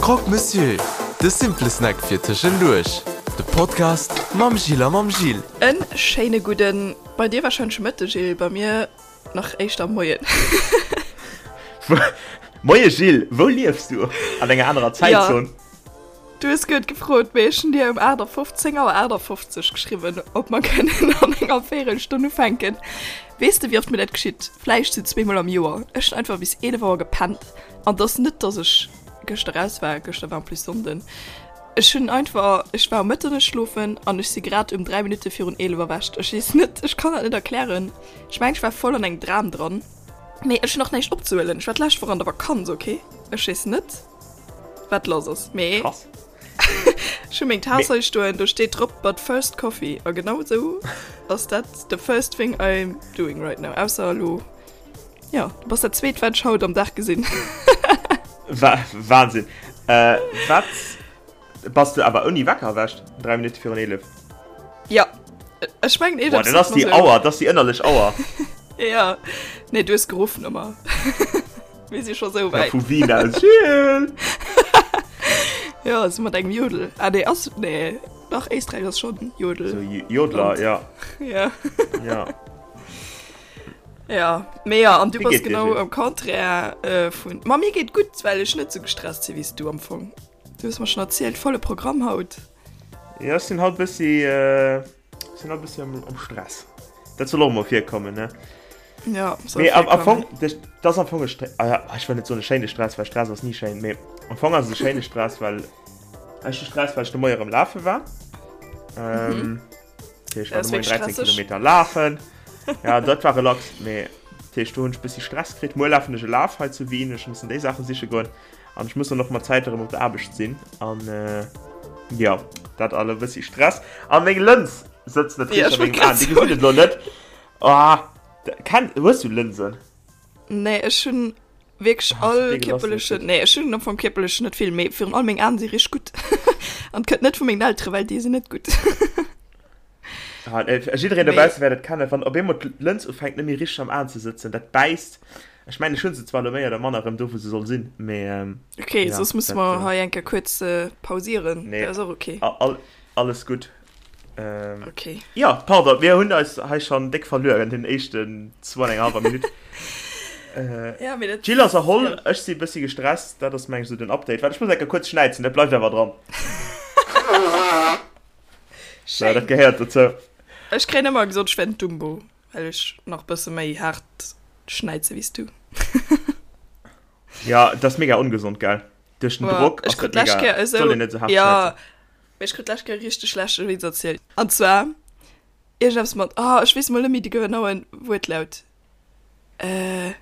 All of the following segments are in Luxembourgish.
Croque Monsieur, de simple Snack fir tëschenduerch. De Podcast mam Jill a mam Gilles. En schéine gudden, bei dir wahrscheinlech Mëtteg Gilles, bei mir nach éischter Moien. Moie Gilles, wou liefs du? An enger anerer Zäitzon? Du hues guet gefrot, mee ech hunn dir um 8 10 Auer 58 geschriwwen, ob mer kënnen an enger Véirelstonn ufänken. Weess de, wéi oft mir dat geschitt? Vläicht sou zweemol am Joer. Ech hunn einfach bis 11 Auer gepennt. An et ass net, dass ech gëschter raus war, gëschter war en plus Sonnden. Ech hunn einfach, ech war um Mëtternuecht schlofen an ech si grad um 3 Minutte virun 11 erwächt. Ech weess net, ech kann dat net erklären. Ech mengen, ech war voll an engem Dram dran. Mee ech hunn och näischt opzehuelen. Ech war d'lescht Woch an der Vakanz, okay? Ech weess net. Wat lass ass, mee Krass. ech hu meng Taass hei stoen, do steet drop but first coffee a genau esou ass dat the first thing I'm doing right now, ausser elo, jo, du bass dat zweet wat ech haut am Dag gesinn. Wa Wahnsinn. Äh, wat bass du awer ouni Wecker erwächt? 3 Minutte virun 11? Ja, ech mengen Boah, dat ass déi Auer, dat ass déi ënnerlech Auer. Ja, nee, du hues geruff ëmmer. Mir si scho sou wäit. Ja, vu Wien aus. Gilles! Ja, sou mat engem Jodel. Ah, nee, ass, nee, dach, Éisträich ass schonn Jodel. So Jodler, ja. Ja. Ja. Ja, mee ja, an du Wéi bass geet dir, genau Gilles? am Contraire äh, vun. Ma mir geet gutt, well ech net sou gestresst si wéi s du am Fong. Du hues mer schonn erzielt, volle Programm haut. Ja, ech sinn haut bëssi, äh, ech sinn haut bëssi am, am Stress. Dat soll och mol virkommen, ne? Ja, soll Mee am, am virkommen. Fong, das, das am Fong e Stre ah, ja, ech wëll net soen e schéine Stress, well Stress ass ni schéin, mee am Fong ass et e schéine Stress, well ech hu Stress, well ech de Moie erëm lafe war. Ähm, dat heescht, ech war Dat de ass Moien wierklech 13 stresseg. Kilometer lafen. Ja, dat war relax, mee dat heescht, do hunn ech e bëssi Stress kritt. Muer lafen ech e Laf hei zu Wien, ech mussen déi Saache siche goen an ech muss dann och mat Zäit erëm op der Aarbecht sinn an äh, ja, dat all e bëssi Stress. A meng Lëns sëtzt net Ja, richteg ech a wollt mengem grad Aen, déi soen. gesinn et elo net. Ah, Ken, hues du Lënsen? Nee, ech hunn wierklech Ah, all déi gelass kierperlechen, net. nee, ech hunn am Fong kierperlech net vill, mee virun allem meng Aen si richteg gutt. An et kënnt net vu mengen Elteren, well déi sinn net gutt. Ah, äh, jiddereen Mee dobausse wäert et kennen, wann op eemol d'Lëns ufänkt net méi richteg am Aen ze sëtzen, dat bäisst. Ech mengen, ech hunn se zwar elo méi oder manner erëm do, wou se soll sinn, mee ähm, okay, ja, soss musse dat, mer äh, hei eng Kéier kuerz äh, pausieren. nee, Dat ass och okay. all, alles gutt. Ähm, Okay. ja, pardon, mir hunn eis hei schon déck verluer an den éischten zwou an enger halber Minutt. Äh, Ja, mee dat, D'Jill ass erholl, ja. ech si bëssi gestresst, dat ass meng ech sou den Update. Waart, ech muss eng Kéier kuerz schnäizen, dat bleift awer dran. So, dat Schéin. gehéiert dozou. Ech kréien ëmmer gesot, ech wär den Dumbo, well ech nach bësse méi haart schnäize wéi s du. Ja, dat ass mega ongesond, gell? Duerch den Boah, Drock ech ass krut dat d'lescht mega, Kéier soll esou, een net sou haart ja, schnäizen. Mee ech krut d'lescht Kéier e richteg schlechte Witz erzielt. An zwar iergendeppes mat, ah, ech weess mol net méi de genaue Wuertlaut. Äh,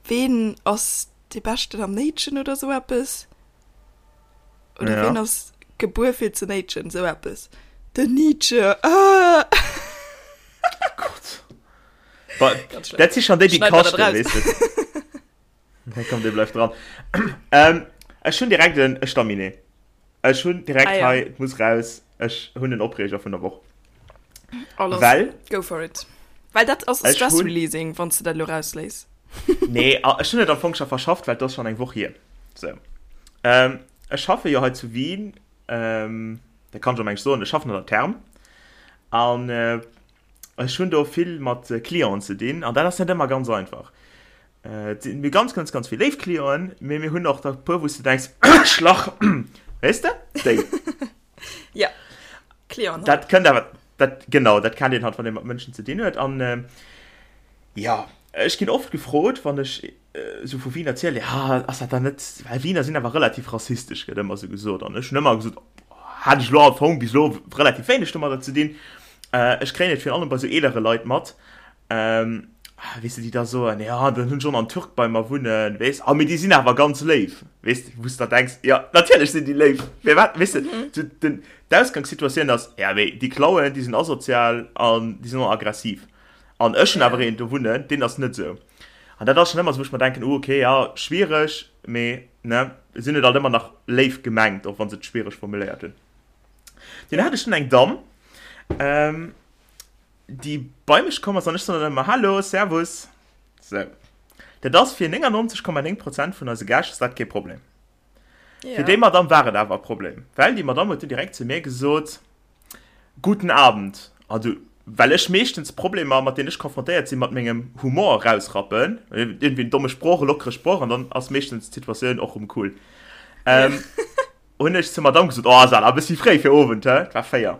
ween ass dee Beschten am Néitschen oder sou eppes? Oder Ja. ween ass gebuer fir ze néitschen, sou eppes. Den Nietzsche, ah! Gott. Ba, Ganz schlimm. dat si schon déi, déi Schneid mer dat kaschten, raus. weess de. Nee, komm, dee bleift dran. Ähm, ech hunn direkt en Staminet. Ech hunn direkt Ah, ja. hei, et muss raus, ech hunn en Opreeger vun der Woch. Alles. Well. Go for it. Well dat ass Ech Stress hunn- Releasing, wann s de dat elo rausléiss. Nee, ah, ech hunn et am Fong scho verschafft, well et ass schonn eng Woch hier. So. Ähm, ech schaffe jo hei zu Wien, ähm, dat kann ech am Englsch soen, ech schaffen an der Therm. An äh, ech hunn do vill mat Clienten ze dinn, an dat ass net ëmmer ganz einfach. Et sinn mir ganz, ganz, ganz vill léif Clienten, mee mir hunn och der puer, wou s de denks, Schlach, weess de, déi. Ja, Clienten halt. Dat kënnt awer, dat, genau, dat kennt een halt, wann ee mat Mënschen ze dinn huet. An jo, ech ginn oft gefrot, wann ech esou vu Wien erzielen, ja, ass dat dann net, well Wiener sinn awer relativ rassistesch, gëtt ëmmer esou gesot. An ech hunn ëmmer gesot, hat ech elo am Fong bis elo relativ wéineg domadder ze dinn. Ech kréien et virun allem bei esou eelere Leit mat, Ähm, weess de, déi da soen, ja, dann hunn ech och nach en Türk bei mer wunnen, weess, ah, mee déi sinn awer ganz léif, weess de, wou s de da denks, ja, natierlech sinn déi léif, firwat, weess de, sou den, d'Ausgangssituatioun ass, ja, mee déi klauen, déi sinn asozial an déi sinn och aggressiv. An ech hunn awer een do wunnen, deen ass net esou. An dat ass schonn ëmmer esou, wou ech mer denken, oh, okay, ja, schwiereg, mee, ne, sinn et alt ëmmer nach léif gemengt, och wa se et schwiereg formuléiert hunn. Dunn hat ech dunn eng Damm, ähm, déi bei mech komm ass an ech soen dann ëmmer Hallo, Servus. Sou. Dat ass fir 99,9 Prozent vun eise Gäscht ass dat kee Problem. Ja. Fir déi Madame war et awer e Problem, well déi Madame huet du direkt zu mir gesot, Guten Abend. Also, well ech meeschtens Problemer, mat deenen ech konfrontéiert sinn, mat mengem Humor erausrappen, iergendwéi en domme Sproch, e lockere Sproch, an dann ass meeschtens d'Situatioun och rëm cool. Ähm, hunn ech zur Madame gesot, oh, ass awer e bëssi fréi fir Owend, hä? Et war 4.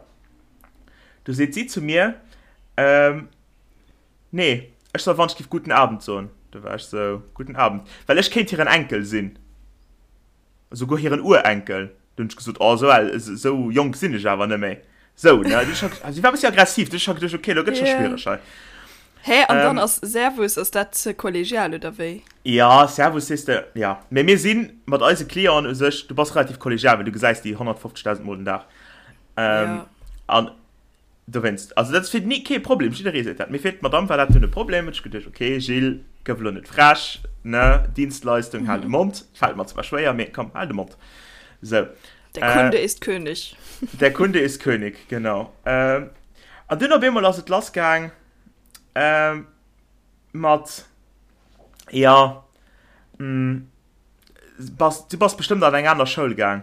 Du seet si zu mir, ähm, Nee, ech soll wann ech giff Guten Abend soen. Du war ech sou, Guten Abend. Well ech kéint hiren Enkel sinn. Esouguer hiren Urenkel. Du hunn ech gesot, oh, esou al, esou jonk sinn ech awer net méi. Sou, ne? Du ech, si war e bëssi aggressiv. Du ech scho geduecht, okay, elo gëtt scho schwiereg hei. Hä, an dann ass Servus, ass dat ze kollegial oder wéi? Ja, Servus sees de, ja. Mee mir si mat eise Clienten u sech, du bass relativ kollegial, well du gesäis déi 150.000 Mol den Dag. An Dowéinst, also dat ass fir ni kee Problem, jidderee seet dat, mee fir d'Madame war dat dunn e Problem, huet ech geduecht, ok Gilles, gëff elo net frech, ne, Dienstleistung, hal de Mond, fält mer zwar schwéier, mee komm, hal de Mond. Sou. Der Kunde ist König. Der Kunde ist König, genau. An dunn op eemol ass et lassgaang mat, jo, bass, du bass bestëmmt an eng aner Schoul gaang.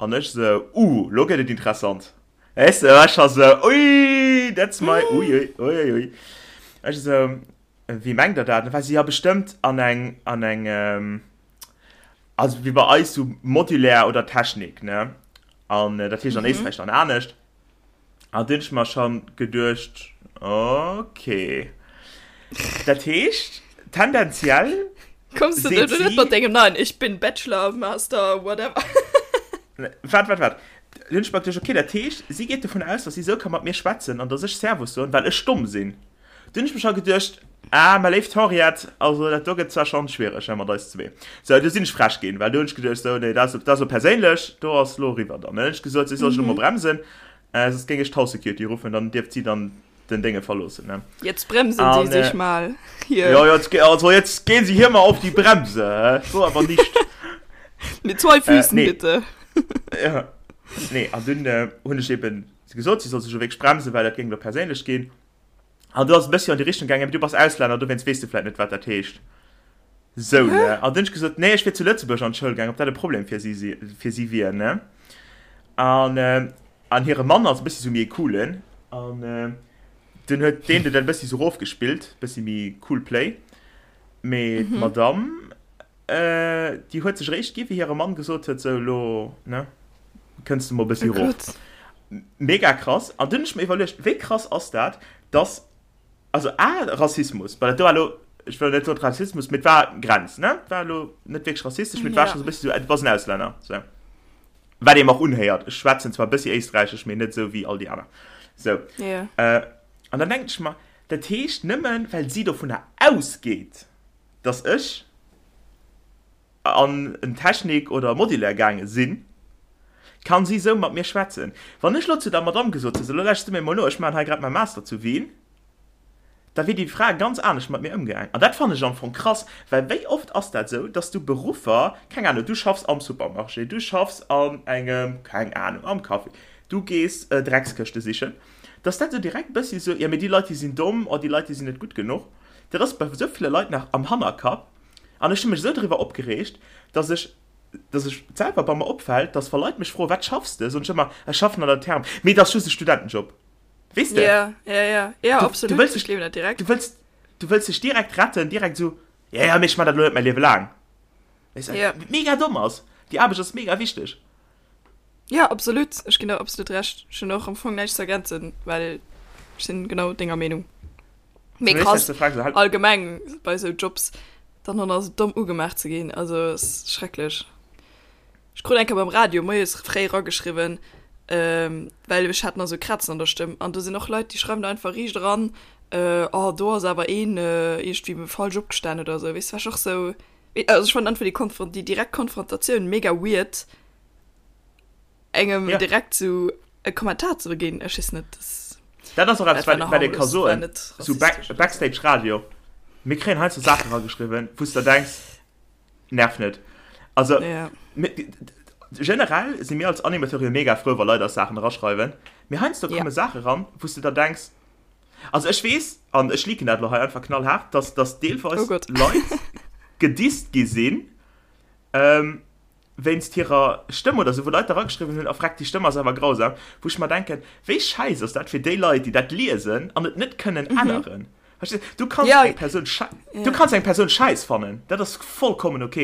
An ech sou, uh, lo gëtt et interessant. Weess de, war ech scho sou, ui, that's my, ui, ui, ui, ui, ui. Ech sou, wéi mengt der dat? Dann war si, ja bestëmmt an eng, an eng, also wéi bei eis sou Modulaire oder Technik, ne? An dat heescht an Éisträich dann anescht. An dunn hunn ech mer schon geduecht, okay. Dat heescht, tendenziell Kommst du seet net mat dengem neien Ich bin Bachelor, Master, whatever. Waart, waart, waart. Dunn hunn ech mer geduecht, okay, dat heescht, si geet dovun aus, dass si esou ka mat mir schwätzen an dass ech Servus soen, well ech domm sinn. Dunn hunn ech mer scho geduecht, ah, mä léift Henriette, also dat do gëtt zwar schonn schwiereg, he, mat eis zwee. Sou, du sinn ech frech ginn, well do hunn ech geduecht, sou, nee, dat ass, dat ass elo perséinlech, do ass elo eriwwer dann. Dann hunn ech gesot, si soll sech elo mol bremsen, soss géing ech d'House Security ruffen, dann dierft si dann den Dénge verloossen, ne. Jetzt bremsen Sie sich mal hier. Ja, jetzt, also jetzt gehen Sie hier mal auf die Bremse, he, so aber nicht. Mit zwei Füßen, nee. bitte. Ja, nee, an dunn hunn ech eben gesot, si soll sech elo wierklech bremsen, well dat géing elo perséinlech ginn. An du ass e bëssi an déi Richtung gaangen, mee du bass Auslänner, dowéinst weess du vläit net, wat dat heescht. Sou, ne? An dunn hunn ech gesot, nee, ech wier zu Lëtzebuerg an d'Schoul gaangen, ob dat e Problem fir si si, fir si wier, ne? An, an hire Mann ass e bëssi sou méi e coolen, an dunn huet deen dat e bëssi sou erofgespillt, bëssi méi cool play. Mee d'Madame, déi huet sech eréischt gi wéi hire Mann gesot huet, sou, elo, ne, kënns de mol e bëssi erof. Mega krass. An dunn hunn ech mer iwwerluecht, wéi krass ass dat, dass, also A, Rassismus, well dat do war elo, ech wëll net soen Rassismus, mee et war Grenz, ne, et war elo net wierklech rassistesch, mee et war scho sou e bëssi sou, du bass en Auslänner, sou. Wat ee mer och unhéiert, ech schwätzen zwar e bëssi Éisträichesch, mee net esou wéi all déi aner, sou. An dann denken ech mer, dat heescht, nëmmen well si dovunner ausgeet, dass ech an en Technik oder Modulaire gaange sinn, kann si esou mat mir schwätzen. Wann ech elo zu der Madamm gesot hätt, sou, elo lauschters du mir emol no, ech maachen hei grad mäi Master zu Wien, da wier déi Fra ganz anescht mat mir ëmgaang. An dat fannen ech am Fong krass, well wéi oft ass dat esou, dass du Beruffer, keng Ahnung, du schaffs am Supermarché, du schaffs an engem, keng Ahnung, am Café, du gees Dreckskëschte sichen, dass dat esou direkt e bëssi esou, jo mee déi Leit, déi sinn domm, oh déi Leit, déi sinn net gutt genuch. Dat ass bei esou ville Leit nach am Hannerkapp. An ech hu mech esou driwwer opgereegt, dass ech, dass ech selwer bei mer opfält, dass wa Leit mech froen, wat schaffs de, soen ech ëmmer, ech schaffen an der Therm. Mee et ass just e Studentenjob. Weess de? Ja, ja, ja, ja, Du, absolut. du wëlls Ech dech, gleewen dat direkt. du wëlls, du wëlls dech direkt retten, direkt esou, ja, ja, mee ech man dat elo net mäi Liewe laang. Weess de, Ja. wat mega domm ass. Déi Aarbecht ass mega wichteg. Ja, absolut. Ech ginn der absolut Recht. Ech hunn och am Fong näischt ze ergänzen, well ech sinn genau denger Meenung. Mee krass, allgemeng bei esou Jobs dann och nach esou domm ugemaach ze ginn, also ass schrecklech. Ech krut eng Kéier beim Radio moies fréi erageschriwwen, well ech hat nach esou Krazen an der Stëmm an do sinn och Leit, déi schreiwen da einfach riicht eran, oh do ass awer een iergendwéi falsch opgestan oder esou, weess, war ech och esou, also ech fannen einfach déi Konfron-, déi direkt Konfrontatioun mega weird. Engem Ja. direkt sou e Kommentar ze ginn, ech weess net, das Dat ass och eppes, dat war wat nach wat ee ka harmlos, war soen, net sou Back, rassistesch oder sou. Backstage Radio, mir kréien heiansdo Saachen erageschriwwen, wou s de der denks, nerv net. Also, Ja. mir, generell si mir als Animateure jo mega frou, wa Leit eis Saachen eraschreiwen, mee heiansdo Ja. komme Saache ran, wou s de der denks, also ech weess, an ech leaken dat elo hei einfach knallhaart, dass, dass Oh deelweis Gott. Leit gedisst gi sinn, ähm,. Wéinst hirer Stëmm oder sou, wou Leit erageschriwwen hunn, a freck, déi Stëmm ass awer grausam, wou ech mer denken, wéi schäiss ass dat fir déi Leit, déi dat liesen an et net kënnen änneren. Verstees du? Du kanns eng Persoun schei, du kanns eng Persoun schäiss fannen, dat ass vollkommen ok,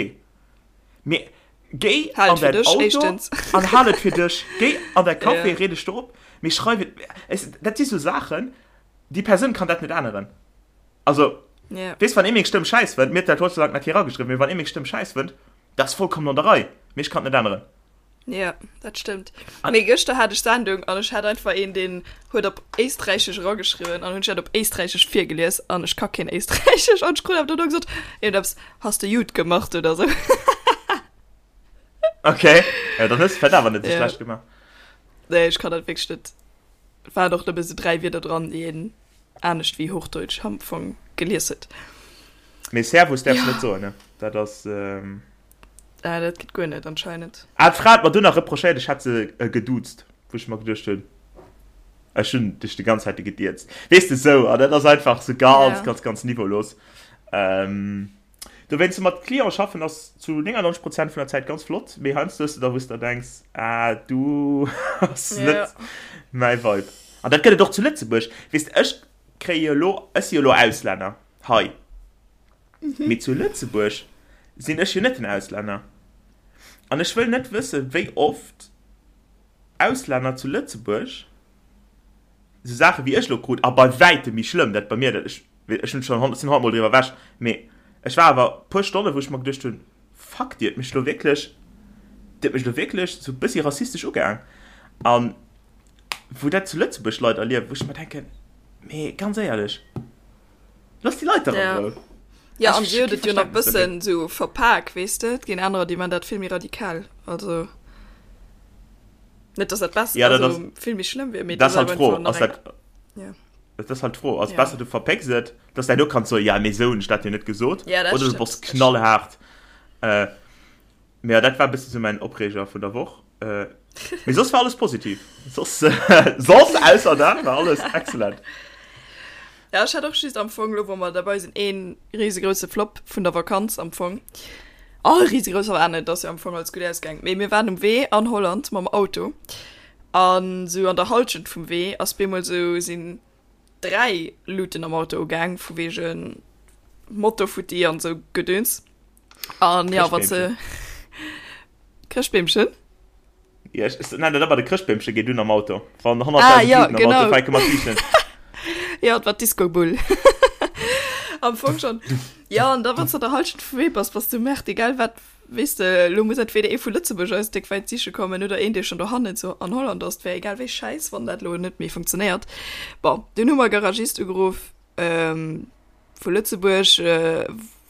mee géi an däin Auto an hal et fir dech, géi an däi Café, reed dech do op, mee schreif et, dat si sou Saachen, déi Persoun kann dat net änneren. Also, weess, wann ee meng Stëmm schäiss fënnt, mir huet dat Gott sei Dank nach kee erageschriwwen, mee wann ee meng Stëmm schäiss fënnt, Dat ass vollkommen an der Rei, mee ech kann et net änneren. Jo, dat stëmmt. Mee gëschter hat ech Sendung an ech hat einfach een, deen huet op Éisträichesch erageschriwwen an hunn ech dat op Éisträichesch virgelies an ech ka keen Éisträichesch an ech krut awer dono gesot, iergendeppes, Hast du jut gemacht oder sou. Okay, ja, dann hues de vläicht awer net esou schlecht gemaach. Nee, ech kann dat wierklech net. Et waren och nëmme sou 3 Wierder dran, déi een anescht wéi Hochdeutsch am Fong gelies huet. Mee Servus däerfs net soen, ne? Dat ass. Ähm... Ah, dat geet guer net anscheinend. Ah, d'Fra hat mer dunn nach reprochéiert, ech hätt se äh, geduuzt, wou ech mer geduecht hunn, ech hunn dech déi ganz Zäit gedierzt. Weess de, sou, an dat ass einfach sou ganz, ja. ganz, ganz niveaulos. Ähm, dowéinst mat Cliente schaffen ass zu 99 Prozent vun der Zäit ganz flott, mee heiansdo hues de da, wou s de denks, ah, du ass ja. net mäi Vibe. An dat gëtt et och zu Lëtzebuerg. Weess de, ech kréie jo elo, ech si jo elo Auslänner hei, mee zu Lëtzebuerg sinn ech jo net den Auslänner. An ech wëll net wëssen, wéi oft Auslänner zu Lëtzebuerg esou Saache wéi ech elo krut, a bei wäitem méi schlëmm, dat bei mir, dat ech, ech hunn schonn, sinn honnertmol driwwer ewech, mee ech war awer e puer Stonne wou ech mer geduecht hunn, fuck, déi huet mech elo wierklech, déi huet mech elo wierklech esou e bëssi rassistesch ugaang. An wou dat zu Lëtzebuerg Leit erliewen, wou ech mer denken, mee ganz éierlech, looss déi Leit dach an Rou. Ja, an si huet et jo nach bëssen sou verpak, weess de, et ginn anerer, déi man dat vill méi radikal, also net, dass dat besser, ja, dat also vill méi schlëmm wier, mee dat ass halt d'Fro, ass dat, ja. Dat ass halt d'Fro, ass ja. besser du verpécks et, dass du herno kanns soen, ja mee sou hunn ech dat jo net gesot, ja, dat oder du bass knallhaart. Äh, Mee ja, dat war e bëssen sou mäin Opreeger vun der Woch. Äh, mee soss war alles positiv. Soss, soss ausser dat war alles excellent. Ja, ech hat och just am Fong, lo wou mer derbei sinn, een risegrouse Flop vun der Vakanz am Fong. Oh, risegrous war net, ass jo am Fong alles gutt ausgaang. Mee mir waren um Wee an Holland mam Auto an sou an der Halschent vum Wee ass bemol sou sinn 3 Luuten am Auto ugaang vu wegen Motor futti an sou Gedöns. An ja, wat se. Chrëschtbeemchen? Ja, ech nennen dat ëmmer de Chrëschtbeemche geet un am Auto. Wann 100.000 ah, ja, Luuten am Auto fänke mat liichten. Ja, et war d'Disco-Bull. Am Fong schon. Ja, an da wann du der Halschent vum Wee bass, bass du merkt, egal wat, weess de, lo muss entweder ee vu Lëtzebuerg eis déck wäit siche kommen oder een, dee schon dohannen zu an Holland ass. 't wär egal wéi schäiss, wann dat lo net méi funktionéiert. Bon, dunn hu mer Garagist ugeruff, ähm, vu Lëtzebuerg,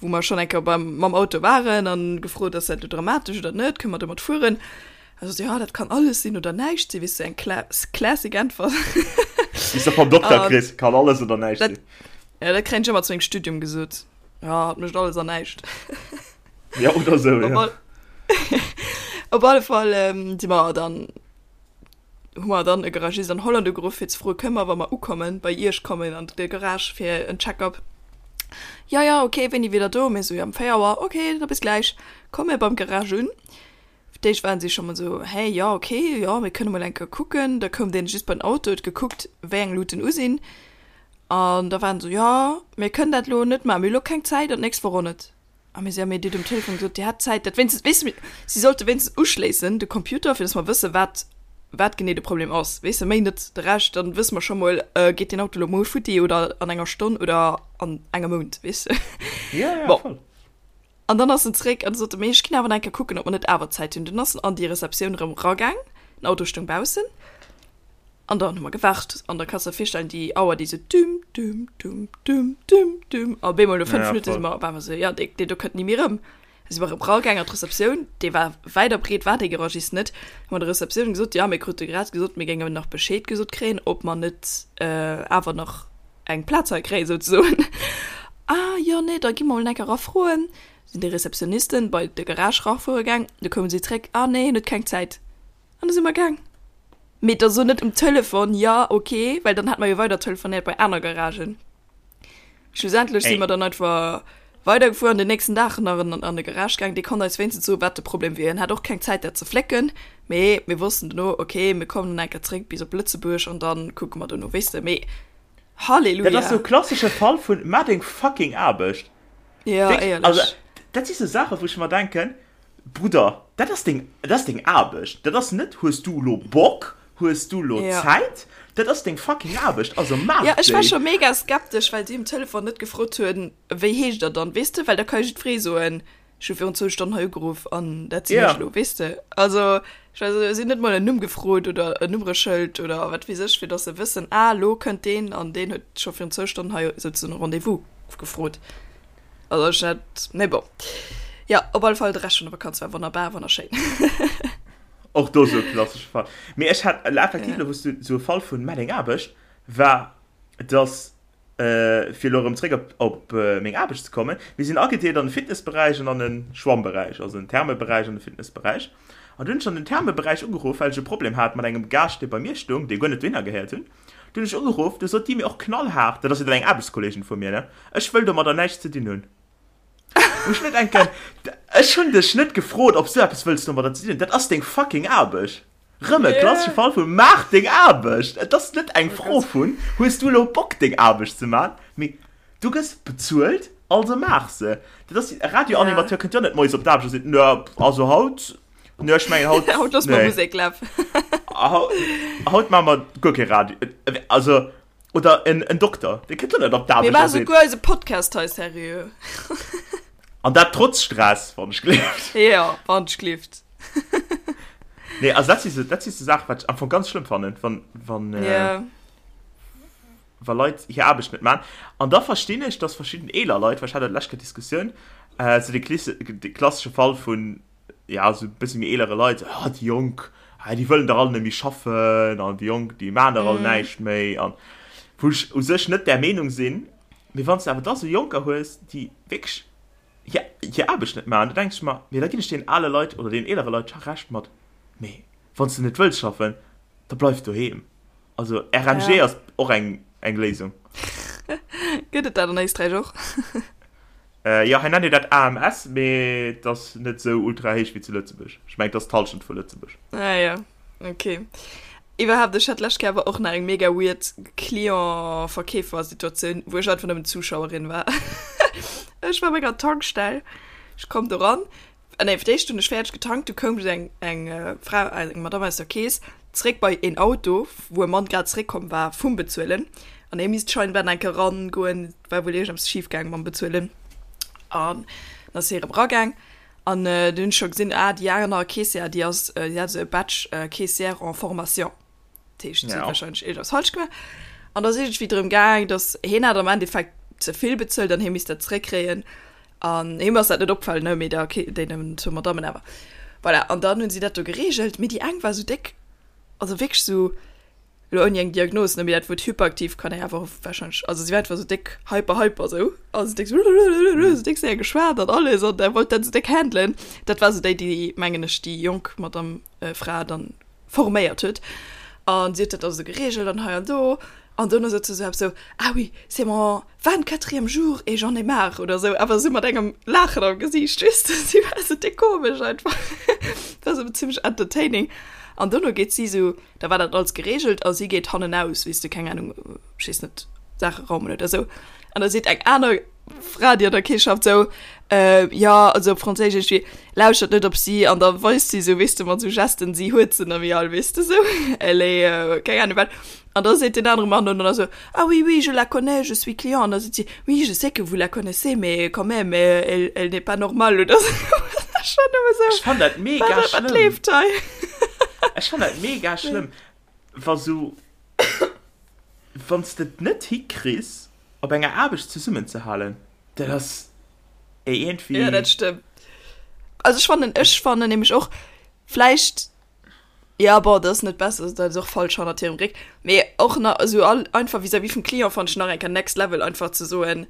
wou mer schonn eng Kéier beim, mam Auto waren an gefrot, ass dat elo dramatesch oder net, kënne mer domat fueren? A sot, jo, dat kann alles sinn oder näischt sinn, weess du, eng kla classic Äntwert. Déi s de vom Dokter kriss, kann alles oder näischt sinn. Jo, dat kréien ech ëmmer zu mengem Studium gesot, jo, et mécht alles an näischt. Jo, oder esou, jo. Op alle Fall si mer dann hu mer dann e Garagist an Holland ugeruff fir ze froen, kënne mer, wa mer ukommen, bei iech kommen an de Garage fir en Check-up? Jo, jo, ok, wéini wier der do? Mir esou, jo, um 4 Auer. Ok, da bis gläich. Komme mir beim Garage un. Fir d'éischt waren si scho mol esou, hä, jo, ok, jo, mir kënne mol eng Kéier kucken. Da koum deen just bei den Auto, huet gekuckt, wéi eng Luuten u sinn. An da waren se esou, jo, mir kënnen dat elo net maachen, mir hu elo keng Zäit an d'nächst Woch och net. A mir si, ja, mee Dir hutt um Telefon gesot, Dir hätt Zäit, dat wéinstens, weess de, si sollte wéinstens uschléissen, de Computer, fir datt mer wëssen, wat, wat genee de Problem ass, weess de, méi net de Rescht, dann wësse mer scho mol, geet deen Auto elo muer futti oder an enger Stonn oder an engem Mount, weess de. Ja, ja, Bon. voll. An dann ass en zréck an sot, mee ech ginn awer nach eng Kéier kucken, ob mer net awer Zäit hunn. Dunn ass en an déi Receptioun erëm ragaang, den Auto stoung baussen. An dann hu mer gewaart an da kanns de der virstellen, déi Auer déi sou düm düm düm düm düm düm a bemol no 5 Ja, Minutte si mer op eemol sou, jo dee dee do kënnt ni méi erëm. Da si mer erëm ragaang an d'Receptioun, dee war wäit a breet war dee Garagist net, hu mer der Receptioun gesot, jo mir krute grad gesot, mir géingen nach Bescheed gesot kréien, ob mer net awer nach eng Plaz hei kréien souzesoen. Ah jo nee, da gi mer mol enk era froen. Sinn déi Receptionnisten bei de Garage rafuere gaang, du koume si zréck, ah nee hien huet keng Zäit. An da si mer gaang. Mee da so net um Telefon, jo, ok, well dann hätt mer jo weider telefonéiert bei aner Garagen. Schlussendlech si mer dann einfach. Weidergefuer an den nächsten Dag nach an de Garage gaang. Dee konnt eis wéinstens soen, wat de Problem wier. Hien hat och keng Zäit, dat ze flécken. Mee mir wossten dono, ok, mir kommen dann eng Kéier zréck bis op Lëtzebuerg an dann kucke mer dono, weess de. Mee Halleluja! Dat ass sou klassesche Fall vun maach deng fucking Aarbecht. Jo, éierlech. Also, dat si sou Saachen, wou ech mer denken, Brudder, dat ass deng, dat ass deng Aarbecht. Dat ass net, hues du elo Bock, hues du elo Zäit, dat ass deng fucking Aarbecht, also maach déi. Jo, ech war scho mega skeptesch, well si um Telefon net gefrot hunn, wéi heescht der dann, weess de, well da ka jo jiddweree soen, ech hu virun zwou Stonnen hei ugeruff an dat sinn ech elo, weess de. Also, ech war esou, si hunn net mol en Numm gefrot oder en Nummereschëld oder wat weess ech, fir datt se wëssen, ah, elo kënnt deen an deen huet scho virun zwou Stonnen hei souzesoen e Rendez-vous gefrot. Also ech hat, mee bon. Jo, op alle Fall de Rescht vun der Vakanz war wonnerbar, wonnerschéin. Och do sou e klassesche Fall. Mee ech hat effektiv elo, wou s du sou e Fall vun Meng Aarbecht war, dass, fir elo erëm zréck op op meng Aarbecht ze kommen, mir sinn agedeelt an de Fitnessberäich an an de Schwammberäich, also den Thermeberäich an de Fitnessberäich. An du hunn ech an den Thermeberäich ugeruff, well ech e Problem hat mat engem Gaascht, dee bei mir stoung, dee guer net dohinner gehéiert hunn. Du hunn ech ugeruff, du sot déi mir och knallhaart, dat ass jo dann eng Aarbechtskolleegin vu mir, ne, ech wëll domadder näischt ze dinn hunn. Wou ech mir denken, ech hunn dech net gefrot, ob s du eppes wëlls domadder ze dinn hunn, dat ass deng fucking Aarbecht. Rëm e klassesche Fall vu maach deng Aarbecht! Et ass net eng Fro vun, hues du elo Bock deng Aarbecht ze man, mee du gëss bezuelt, also maach se. Dat ass, e Radioanimateur kënnt jo net moies op d'Aarbecht a seet, nö, also haut, nö, ech mengen haut, Haut loosse mer Musek lafen. Haut maache mer guer kee Radio, also, oder en Dokter, dee kënnt jo net op Mir d'Aarbecht a maache seet. souguer eise Podcast hei seriö. An dat trotz Stress, wann ech gleeft. Jo, wann ech gleeft. Nee, also dat si sou, dat si sou Saachen, wat ech am Fong ganz schlëmm fannen, wann, wann, Ja. wa Leit hir Aarbecht net man. An da verstinn ech, dass verschidden eeler Leit, well ech hat dat d'lescht Kéier d'Diskussioun, äh, sou de Klisse, de klassesche Fall vun, ja, sou e bësse méi eelere Leit, sou, ah, déi Jonk, ah, déi wëllen dach all net méi schaffen an déi Jonk, déi man dach all näischt méi an wou ech u sech net där Meenung sinn, mee wann s de awer da sou Jonker hues, déi wierklech hir, hir Aarbecht net maachen, da denke ech mer, mee da ginn ech deenen ale Leit oder deenen eelere Leit scho Recht mat, mee wann s de net wëlls schaffen, da bleif doheem. Also RMG Ja. ass och eng, eng Léisung. Gëtt et dat an Éisträich och? Äh, jo, hei nennt een dat AMS, mee et ass net esou ultra héich wéi zu Lëtzebuerg. Ech mengen, et ass d'Hallschent vu Lëtzebuerg. Ah ja, okay. Iwwerhaapt, ech hat d'lescht Kéier awer och nach eng mega weird Client-Verkeefer-Situatioun, wou ech einfach nëmmen Zuschauerin war. Ech war op enger Tankstell, ech komm do ran, ah nee, fir d'éischt hunn ech fäerdeg getankt, du koum eng, eng Fra, eng Madame aus der Kees zréck bei een Auto, wou e Mann grad zréckkomm war vum Bezuelen an hie misst scheinbar nach eng Kéier erangoen, war wuel iergendeppes schif gaang mam Bezuelen an dann ass hie erëm eragaang an du hunn ech scho gesinn, ah déi aner Caissière, déi ass, déi hat esou e Badge Caissière en formation. Dat heescht, si huet warscheinlech iergendeppes falsch gemaach. An da ass iergendwéi drëm gaang, datt hien hat am Endeffekt ze vill bezuelt an hie misst dat zeréckkréien. An him ass dat net opgefall, ne, mee der Ke-, deenen zwou Madammen awer. Voilà, an dann hunn si dat do gereegelt. Mee déi eng war esou déck, also wierklech esou, elo ouni eng Diagnos, ne, mee dat Wuert hyperaktiv kann ee awer och warscheinlech, also si war einfach esou déck hyper, hyper esou, also déck esou, esou déck séier geschwat an alles an da wollt dat esou déck handelen. Dat war esou déi, déi, mengen ech, déi jonk Madame, Fra dann forméiert huet an si huet dat also geregelt an hei an do an dono sot se sou eppes sou, ah oui, c'est mon vingt-quatrième jour et j'en ai marre oder sou, awer sou mat engem Laachen am Gesiicht, weess de, si war sou déck komesch einfach, war sou zimmlech entertaining an dono geet si sou, da war dat alles geregelt a si geet hannenaus, weess de, keng Ahnung, ech weess net, Saache raumen oder sou an da seet eng aner Fra, déi an der Kees schafft, sou, äh, jo, also op Franséisch iergendwéi, lauschtert net op si an da weist si sou, weess de, mat sou Gesten, si huet se nëmme all, weess de, sou, elle est, euh, keng Ahnung wat. An da seet deen anere Mann dann esou, ah oui, oui, je la connais, je suis client. An da seet si, oui, je sais que vous la connaissez, mais quand même, elle, elle n'est pas normale oder sou. Ech war nëmme sou, Ech fann dat mega wat, wat schlëmm. leeft hei? Ech fann dat mega schlëmm, wa sou, wann s de et net hikriss, op enger Aarbecht zesummenzehalen, dat ass iergendwéi. Ja, dat stëmmt. Also ech fannen, ech fannen nämlech och, vläicht, ja bon, dat ass net besser, dat ass och falsch hannert hirem Réck, mee och nach esou all einfach vis-à-vis vum Client fannen ech nach eng Kéier next level einfach ze soen,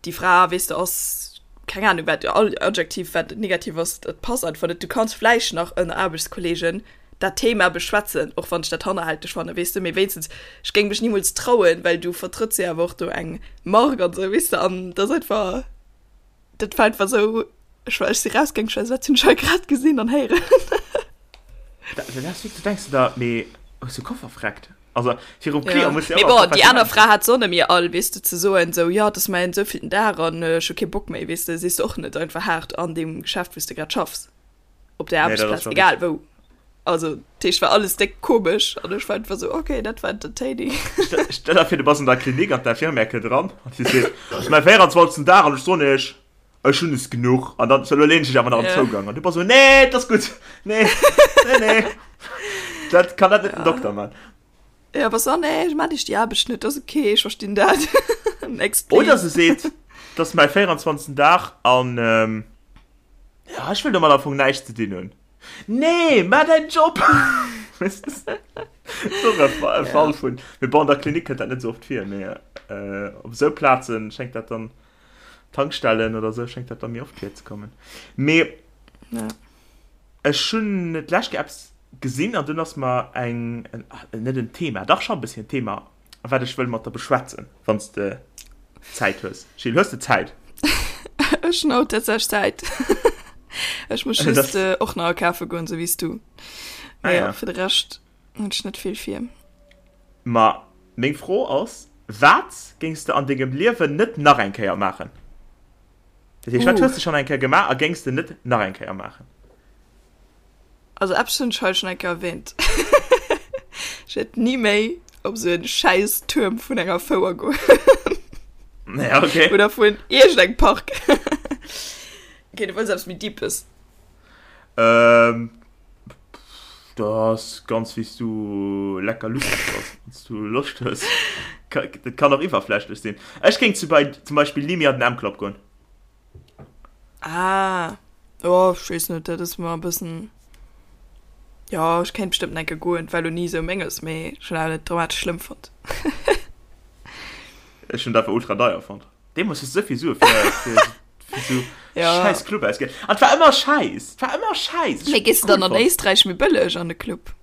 déi Fra, weess de, ass keng Ahnung wat, all Adjektiv wat negativ ass, dat passt einfach net. Du kanns vläicht nach ënner Aarbechtskolleegen dat Thema beschwätzen, och wann ech dat hannerhälteg fannen, weess de, mee wéinstens, ech géing mech nimools trauen, well du vertrëtts jo awer och do eng Mark an esou, weess de, an dat ass einfach. Dat war einfach sou, ech war, ech si rausgaang, ech war sou, wat hunn ech hei grad gesinn an héieren? Da, da, da denkst du da, mee hues du Koffer freckt? Also virum Ja. Client muss Mee bon, déi aner Fra hat s'och net méi all, weess de, ze soen sou, jo, et ass mäin souvielten Dag an ech hu kee Bock méi, weess de, sees de och net einfach haart an deem Geschäft, wou s de grad schaffs, op der Nee, dat ass Aarbechtsplaz, schon egal wou. Also, dat heescht, war alles déck komesch an ech war einfach sou, okay, dat war entertaining. Stell der vir, du bass an der Klinik an d'Infirmière kënnt eran an si seet, et ass mäi 24. Dag an ech soen iech, ech hunn es genuch. An dann, so, elo leen ech dech awer nach am Ja. Zougang. An du bass sou, nee, et ass gutt, nee, nee, nee. Dat kann dat net den Dokter man. Ja, bass so, nee, ech maan iech déi Aarbecht net, ass okay, ech verstinn dat. Next, please. Oder se seet, et ass mäi 24. Dag an, ähm, ja, ech wëll domat am Fong näischt ze dinn hunn. Nee, maach däin Job! Weess de? Ass och e Fa- e Fall vun. Mee bon, an der Klinik kënnt dat net esou oft vir, mee äh, op esou Plazen schéngt dat dann, Tankstellen oder esou, schéngt dat dann méi oft virzekommen. Mee Ja. ech hunn d'lescht Kéier eppes gesinn an dunn ass mer eng, en, net en Thema, dach scho e bësschen en Thema, wat ech wëll mat der beschwätzen, wann s de Zäit hues. Jill, hues de Zäit? Ech hunn haut tatsächlech Zäit. Ech muss Das- just äh, och nach akafe goen, sou wéi s du. Ah, Mee ja. ja, fir de Rescht hunn ech net vill vir. Ma meng Fro ass, Wat géings de an dengem Liewen net nach eng Kéier maachen? Dat heescht, wat Uh. hues de schonn eng Kéier gemaach a géings de net nach eng Kéier maachen? Also eppes hunn ech hei schonn eng Kéier erwähnt. Ech wäert ni méi op esou en schäiss Tuerm vun enger Fouer goen. Ja, okay. Oder vun iergendengem Park. Okay, du wëlls eppes méi Deepes. Ähm, dat ass ganz wéi s du lecker lustig bass, wann s du Loscht hues. Dat kann och iwwerflächlech sinn. Ech géing zu bei, zum Beispill ni méi an den M-Club goen. Ah, oh, ech weess net, dat ass mer e bëssen, jo, ech kéint bestëmmt enke goen, et war elo ni esou menges, mee ech hunn awer net dramatesch schlëmm fonnt. Ech hunn et einfach ultra deier fonnt. Deemools hues du esou vill Sue fir, fir, fir esou Ja. schäiss Club ausginn. An et war ëmmer schäiss, et war ëmmer schäiss. Mee gees de dann an Éisträich méi bëlleg an de Club?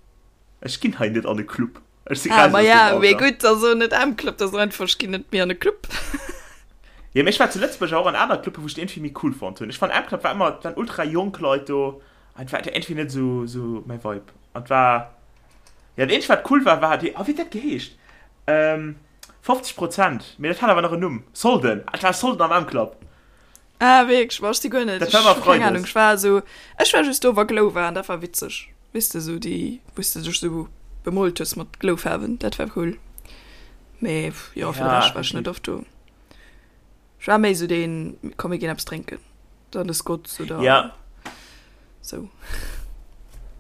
Ech ginn hei net an e Club. Ech si Ah, raus ma aus ja, dem mee Alter. gutt, also net am Club, dat ass einfach, ech ginn net méi an e Club. Jo, mee ech war zu Lëtzebuerg och an aner Clubben, wou ech et iergendwéi méi cool fonnt hunn. Ech fannen, am Club war ëmmer, et waren ultra jonk Leit do an et war iergendwéi net esou, esou mäi Vibe. An et war, jo, dat eenzegt, wat cool war, war déi, oh, wéi huet dat geheescht? Ähm, 50 Prozent, mee dat hat awer nach en Numm, Solden, ah, et war Solden am M-Club. Ah, wierklech? Boah, ech si guer net, Dat war ëmmer ech hu keng Ahnung, Freides. ech war esou, ech war just do, wa Glow war an dat war witzeg. Weess de, esou déi, wou s de dech esou bemoolt hues mat Glowfaarwen, dat war cool. Mee jo, fir de Ja, Rescht war ech net effektiv. oft do. Ech war méi esou deen, komm mir ginn eppes drénken, dann de Scott's oder Ja. sou.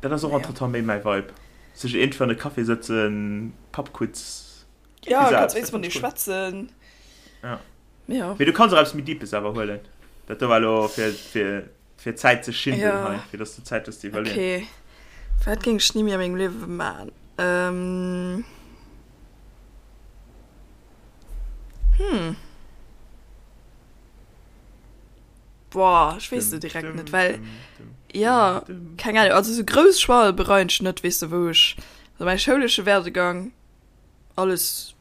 Dat ass och Naja. entretemps méi mäi Vibe. Sech iergendwéi an e Café sëtzen, Pubquiz, Ja, iergendwéi kanns sou eppes, wéinstens dat mat fannen deem ech cool. schwätzen. Ja. Ja. Mee du kanns och eppes méi Deepes awer huelen. Dat do war elo fir, fir, fir Zäit ze schinden Ja. hei, fir dass du Zäit hues ze iwwerleeën. Okay. Wat géing ech ni méi a mengem Liewe man? Ähm. Hm. Boah, ech weess se direkt net, well, ja, keng Ahnung, also sou grouss Choixë bereien ech net, weess de, wou ech, also mäi schoulesche Werdegang, alles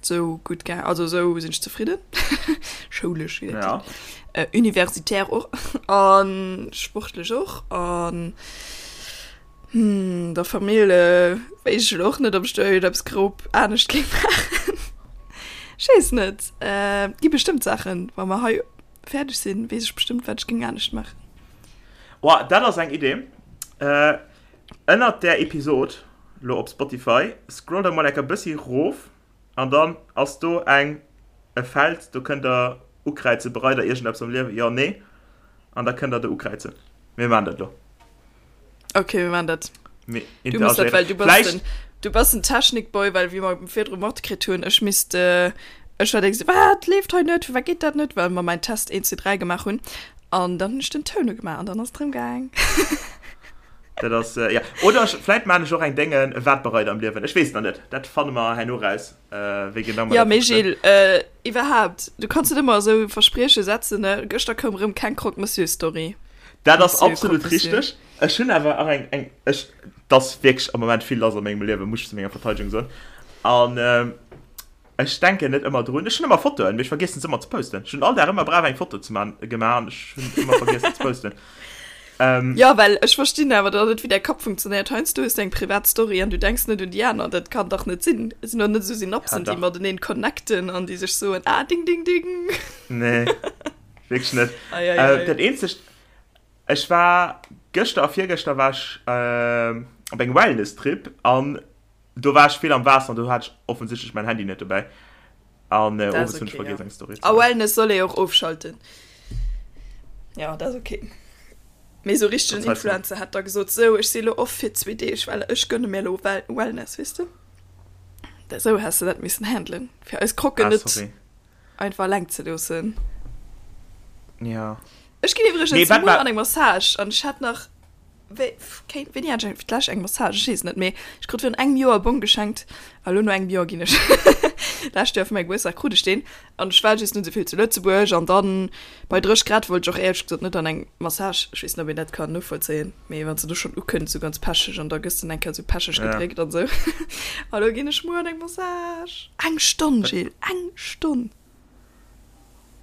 sou gutt gaang, also sou sinn ech zefridden, schoulesch wéi dat Ja. heescht, äh, universitär och an sportlech och an hm, der Famill äh, wéisst ech elo och net, ob ech do iergendeppes grob anescht géing maachen. Ech weess net, äh, gi bestëmmt Saachen, wa mer hei fäerdeg sinn, weess ech bestëmmt, wat ech géing anescht maachen. Boah, dat ass eng Idee. Äh, Ënnert där Episod, lo op Spotify, scrollt der mol enker bëssi rof an dann ass do eng e Feld, do kënnt der ukräizen, bereit der iergendeppes am Liewen, jo, nee, an da kënnt der do ukräizen. Mir maachen dat lo. Okay, mir maachen dat. Mir Du muss dat, interagéieren. well du bass Vläicht. den, du bass den Technikboy, well wéi mer virdru matkritt hunn, ech misst, ech war déi esou, wat leeft hei net, firwat geet dat net, well mer mäin Test 1, 2, 3 gemaach hunn an dann hunn ech den Toun ugemaach an dann ass et erëm gaang. Dat ass, äh, ja. Oder ech, vläit maan ech och eng Déngen, wat bereit am Liewen. Ech weess nach net. Dat fanne mer herno raus, äh, wéi genau mer Ja, dat mee wëssen. Gilles, äh, iwwerhaapt, du kanns net ëmmer esou Versprieche setzen, ne? Gëschter koum erëm keng Croque-Monsieur-Story. Dat ass Monsieur absolut Croque-Monsieur. richteg. Ech hunn awer och eng, eng, ech, 't ass wierklech am Moment vill lass a mengem Liewen, muss ech zu menger Verteidigung soen. An, ähm. Ech denken net ëmmer drun. Ech hunn ëmmer Fotoen, mee ech vergiessen se ëmmer ze posten. Ech hunn all Dag ëmmer brav eng Foto ze man, gemaach an ech hunn ëmmer vergiessen ze posten. Ähm, ja, well ech verstinn awer dann net, wéi däi Kapp funktionéiert. Heiansdo hues du eng privat Story an du denks net un déi aner. Dat kann dach net sinn. Et sinn doch net esou Synapsen, ja, déi mateneen connecten an déi sech soen, ah, ding, ding, ding. Nee, wierklech net. Ei, ei, ei. Äh, dat eenzegt, ech war gëschter a virgëschter war ech äh, op engem Wellness-Trip an Do war ech vill am Waasser an do hat ech offensichtlech mäin Handy net dobäi. An äh, owes hunn ech vergiess eng Story ze maachen. A Wellness soll ee och ofschalten. Ja, dat ass ok. Mee sou richtegen Influencer hätt da gesot, sou ech si lo off fir zwee Deeg, well ech gönne mir lo Wellness, weess de? Sou häss de dat missen handelen, fir eis Krocken ah, net einfach eleng ze loossen. Ja. Ech ginn iwwregens nee, muer an eng Massage an ech hat nach Wéi, kéint, wéini hat ech fir d'lescht eng Massage? Ech weess et net méi. Ech krut virun engem Joer e Bong geschenkt a lo no engem Joer ginn ech lescht Joer fir mäi Gebuertsdag krut ech deen an ech war just net esou vill zu Lëtzebuerg an dann bei 30 Grad wollt ech och éierlech gesot net an eng Massage. Ech weess net, ob een dat kann novollzéien, mee wann s de do schonn ukënns esou ganz pecheg an da gëss de eng Kéier esou pecheg gedréckt an esou. A lo ginn ech muer an eng Massage. Eng Stonn, Jill, eng Stonn!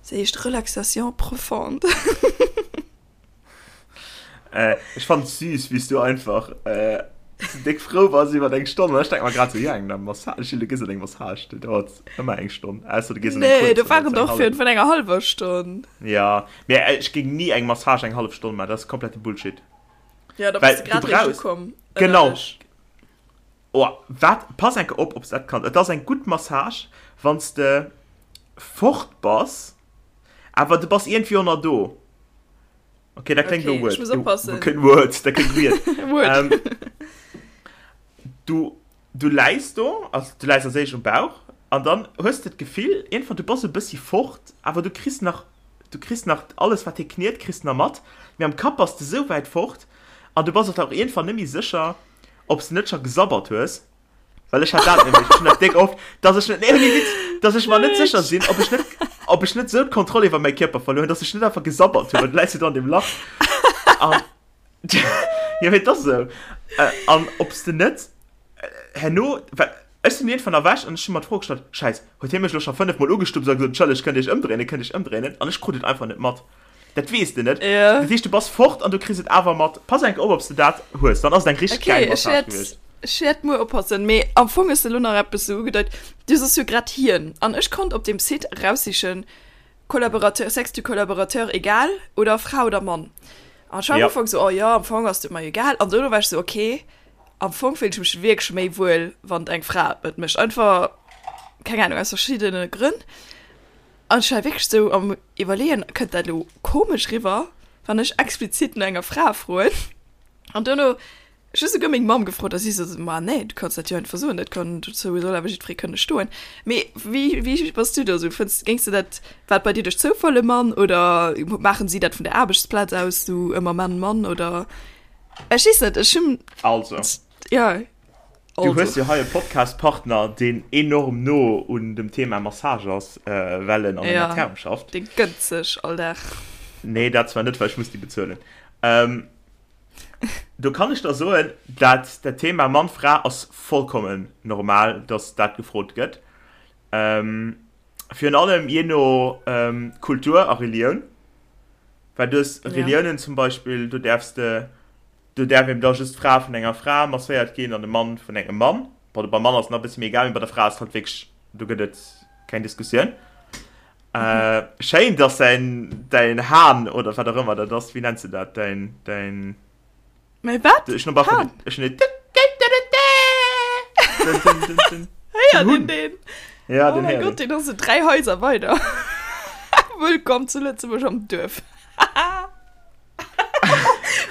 Se heescht Relaxation profonde. Äh, ech fand süß, wéi s du einfach äh, so déck frou bass iwwer eng Stonn. An ech denk mer grad so, ja, eng Massage, Gilles, du gees an eng Massage, déi dauert ëmmer eng Stonn. Ausser du gees an eng Nee, kuerz, do dann waren dauert se eng doch fir hallef. vun enger hallwer Stonn. Ja, mee äh, ech géing ni eng Massage eng hallef Stonn maachen, dat ass komplette Bullshit. Ja, da bass Well du du grad réischt brauchs, ukomm, genau, ënnerlech. Oh, wat, pass enke op, ob s dat kanns. Et ass eng gutt Massage, wann s de fort bass, awer du bass iergendwéi och nach do. Okay, dat kléngt okay, weird. Ech muss oppassen. Okay, weird, dat kléngt weird. weird. Ähm, du, du läis do, also du läis als éischt um Bauch, an dann hues de d'Gefill, iergendwann, du bass e bëssi fort, awer du kriss nach, du kriss nach alles, wat hie kniet, kriss nach mat, mee am Kapp bass de sou wäit fort, an du bass och dann och iergendwann net méi sécher, ob s de net scho gesabbert hues. Well ech hat dat nämlech, ech hunn dat déck oft, dass ech net, nee, ouni Witz, dass ech mer net sécher sinn, ob ech net, ob ech net esou d'Kontroll iwwer mäi Kierper verluer hunn, dass ech net einfach gesabbert hunn, well du läis jo do an deem Lach an, jo, mee et ass esou. An ob s de net herno, well ech sinn iergendwann erwächt an ech hu mer d'Fro gestallt, Schäiss, huet hie mech elo scho fënnefmol ugestupst a gesot, Entschëlleg, kënnt Dir iech ëmdréinen, kënnt Dir iech ëmdréinen? An ech krut et einfach net mat. Dat weess de net. Ja. Dat heescht, du bass fort an du kriss et awer mat. Pass enk op, ob s de dat hues. Dann ass et eng richteg Okay, gäil ech Massage wäert, gewiescht. ech wäert muer oppassen. Mee am Fong hues de elo nach eppes sou ugedeit. Du soss jo grad hien. An ech konnt op deem Site eraussichen, Collaborateur, Sexe du collaborateur egal oder Fra oder Mann. An ech war am Ja. Ufank sou, oh jo, am Fong ass et mer egal. An dono war ech sou, okay, am Fong fillen ech mech wierklech méi wuel, wann et eng Fra et mécht. Einfach, keng Ahnung, aus verschiddene Grënn. An ech war wierklech sou am Iwwerleeën, kënnt dat elo komesch riwwer, wann ech explizit no enger Fra froen? An duerno, ech hu souguer meng Mamm gefrot a si sot, ma nee, du kanns dat jo einfach soen, dat kann, dozou soll awer jiddweree kënne stoen. Mee wéi, wéi bass du do sou? Fënns, géings de dat, war et bei dir duerch Zoufall e Mann oder maachen si dat vun der Aarbechtsplaz aus sou ëmmer Mann, Mann oder? Ech weess net, ech hunn. Also. Ja. Du hues jo hei e Podcast-Partner, deen enorm no un dem Thema Massage ass, well en an enger Therm schafft. Dee gënnt sech all Dag. Nee, dat zwar net, well ech muss déi bezuelen. Do kann ech der soen, dat dat Thema Mann-Fra ass vollkommen normal, dass dat gefrot gëtt. Virun allem jee no Kultur a Relioun. Well du hues Reliounen zum Beispill, do däerfs de Do däerf eben da just d'Fra vun enger Fra masséiert ginn an de Mann vun engem Mann. Bon, beim Mann ass et nach e bësse méi egal, mee bei der Fra ass et halt wierklech, do gëtt et keng Diskussioun. Äh, schéin, dass däin, däin Hahn oder wat och ëmmer dat ass, wéi nenns de dat, däin, däin. Mäi wat? Ech hunn op alle Fall, ech hunn Hahn? Héiert een deen? Ja, den héiert een. Oh mäi Gott, deen ass esou 3 Haiser weider. Wëllkomm zu Lëtzebuerg am Duerf.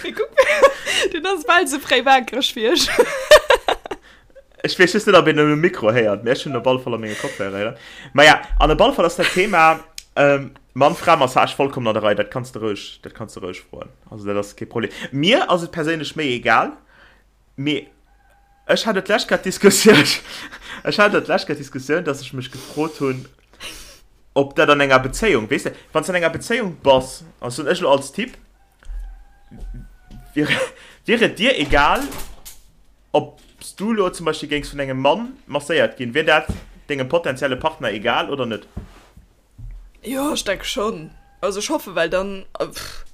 Mee kuck, den ass bal sou fréi waakreg wéi ech. Ech weess just net, ob een en um Mikro héiert, mee ech hunn en op alle Fall a menge Kopfhörer héieren. Maja, an op alle Fall ass dat Thema ähm, Mann-Fra-Massage vollkommen an der Rei. Dat kanns de roueg, dat kanns de roueg froen. Also dat ass kee Problem. Mir ass et perséinlech méi egal, mee ech hat et d'lescht Kéier d'Diskussioun, ech hat et d'lescht Kéier d'Diskussioun, dass ech mech gefrot hunn, ob dat an enger Bezéiung, weess de, wann s de an enger Bezéiung bass, also soen ech elo als Typ, wier, wier et dir egal, ob s du elo zum Beispill géings vun engem Mann masséiert ginn, wier dat. dengem potenzielle Partner egal oder net? Jo, ech denke schonn. Also ech hoffen, well dann, pff,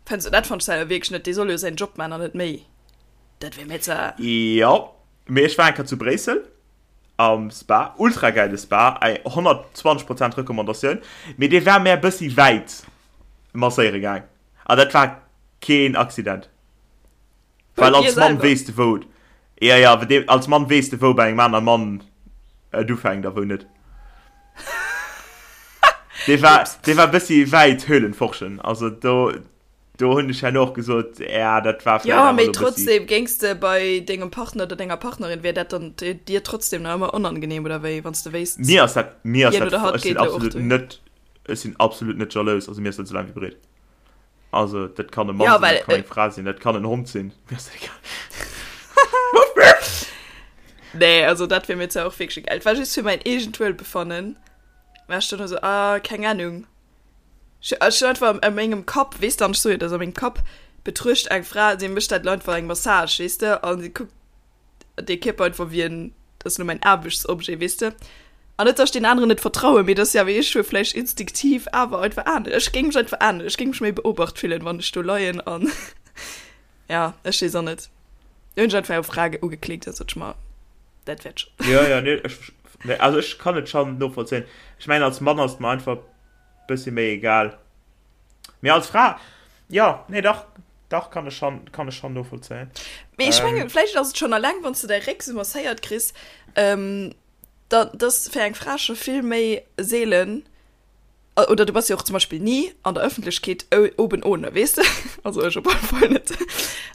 fännst du, dat fannt ech selwer wierklech net, dee soll jo säin Job man an net méi. Dat wär mir ze. Jo, mee ech war eng Kéier zu Bréissel am Spa, ultra gäile Spa, eng 120 Prozent Recommandatioun, mee dee war mär bëssi wäit masséiere gaang an dat war keen Accident. Bei Well dir als Mann selwer? weess de wou, ja ja, als Mann weess de wou bei engem anere Mann et ufänkt a wou net. Dee war, Ups. dee war bëssi wäit Höhlenforschen, also do, do hunn ech herno och gesot, ja dat war vläit Jo, awer mee elo bëssi. trotzdem, géings de bei dengem Partner oder denger Partnerin, wär dat dann dir trotzdem nach ëmmer onangenehm oder wéi, wann s de wéisst, Mir ass dat, mir ass hien dat, oder hatt ech sinn geet elo och absolut dohin? net, ech sinn absolut net jalous, also mir ass dat esou laang wéi breet. Also dat kann e Mann Ja, sinn, well dat kann äh, eng Fra sinn, dat kann en Hond sinn. Mir ass dat egal. Nee, also dat wär mir zwar och wierklech egal. Et war just fir mäin eegent Wuelbefannen. War ech dann esou, ah, keng Ahnung. Ech ech hunn einfach a mengem Kapp, weess de, an ech soe jo, dat ass a mengem Kapp, betruecht eng Fra, si mécht dat elo einfach eng Massage, weess de, a si kuckt dee Kierper einfach wéi en, dat ass elo mäin Aarbechtsobjet, weess de. An net, datt ech deen aneren net vertrauen, mee dat ass jo awer, ech hu vläicht instinktiv awer einfach anescht, ech géing mech einfach anescht, ech géing mech méi beobacht fillen, wann ech do leien an ja, ech weess och net. Do hunn ech einfach eng Fra ugeklickt, da sot ech mer, dat wäert schonn. Jo, jo, nee, ech, nee, also ech kann et schonn novollzéien. Ech mengen, als Mann ass et mer einfach bëssi méi egal. Mee als Fra, jo, nee, dach, dach, kann ech schonn, kann ech schonn novollzéien. Mee ech mengen, Ähm. vläicht ass et schonn alleng, wann s de däi Réck sou masséiert kriss, ähm, da, dass fir eng Fra scho vill méi seelen, oder du bass jo och zum Beispill ni an der Ëffentlechkeet oben ohne, weess de? Also ech op alle Fall net.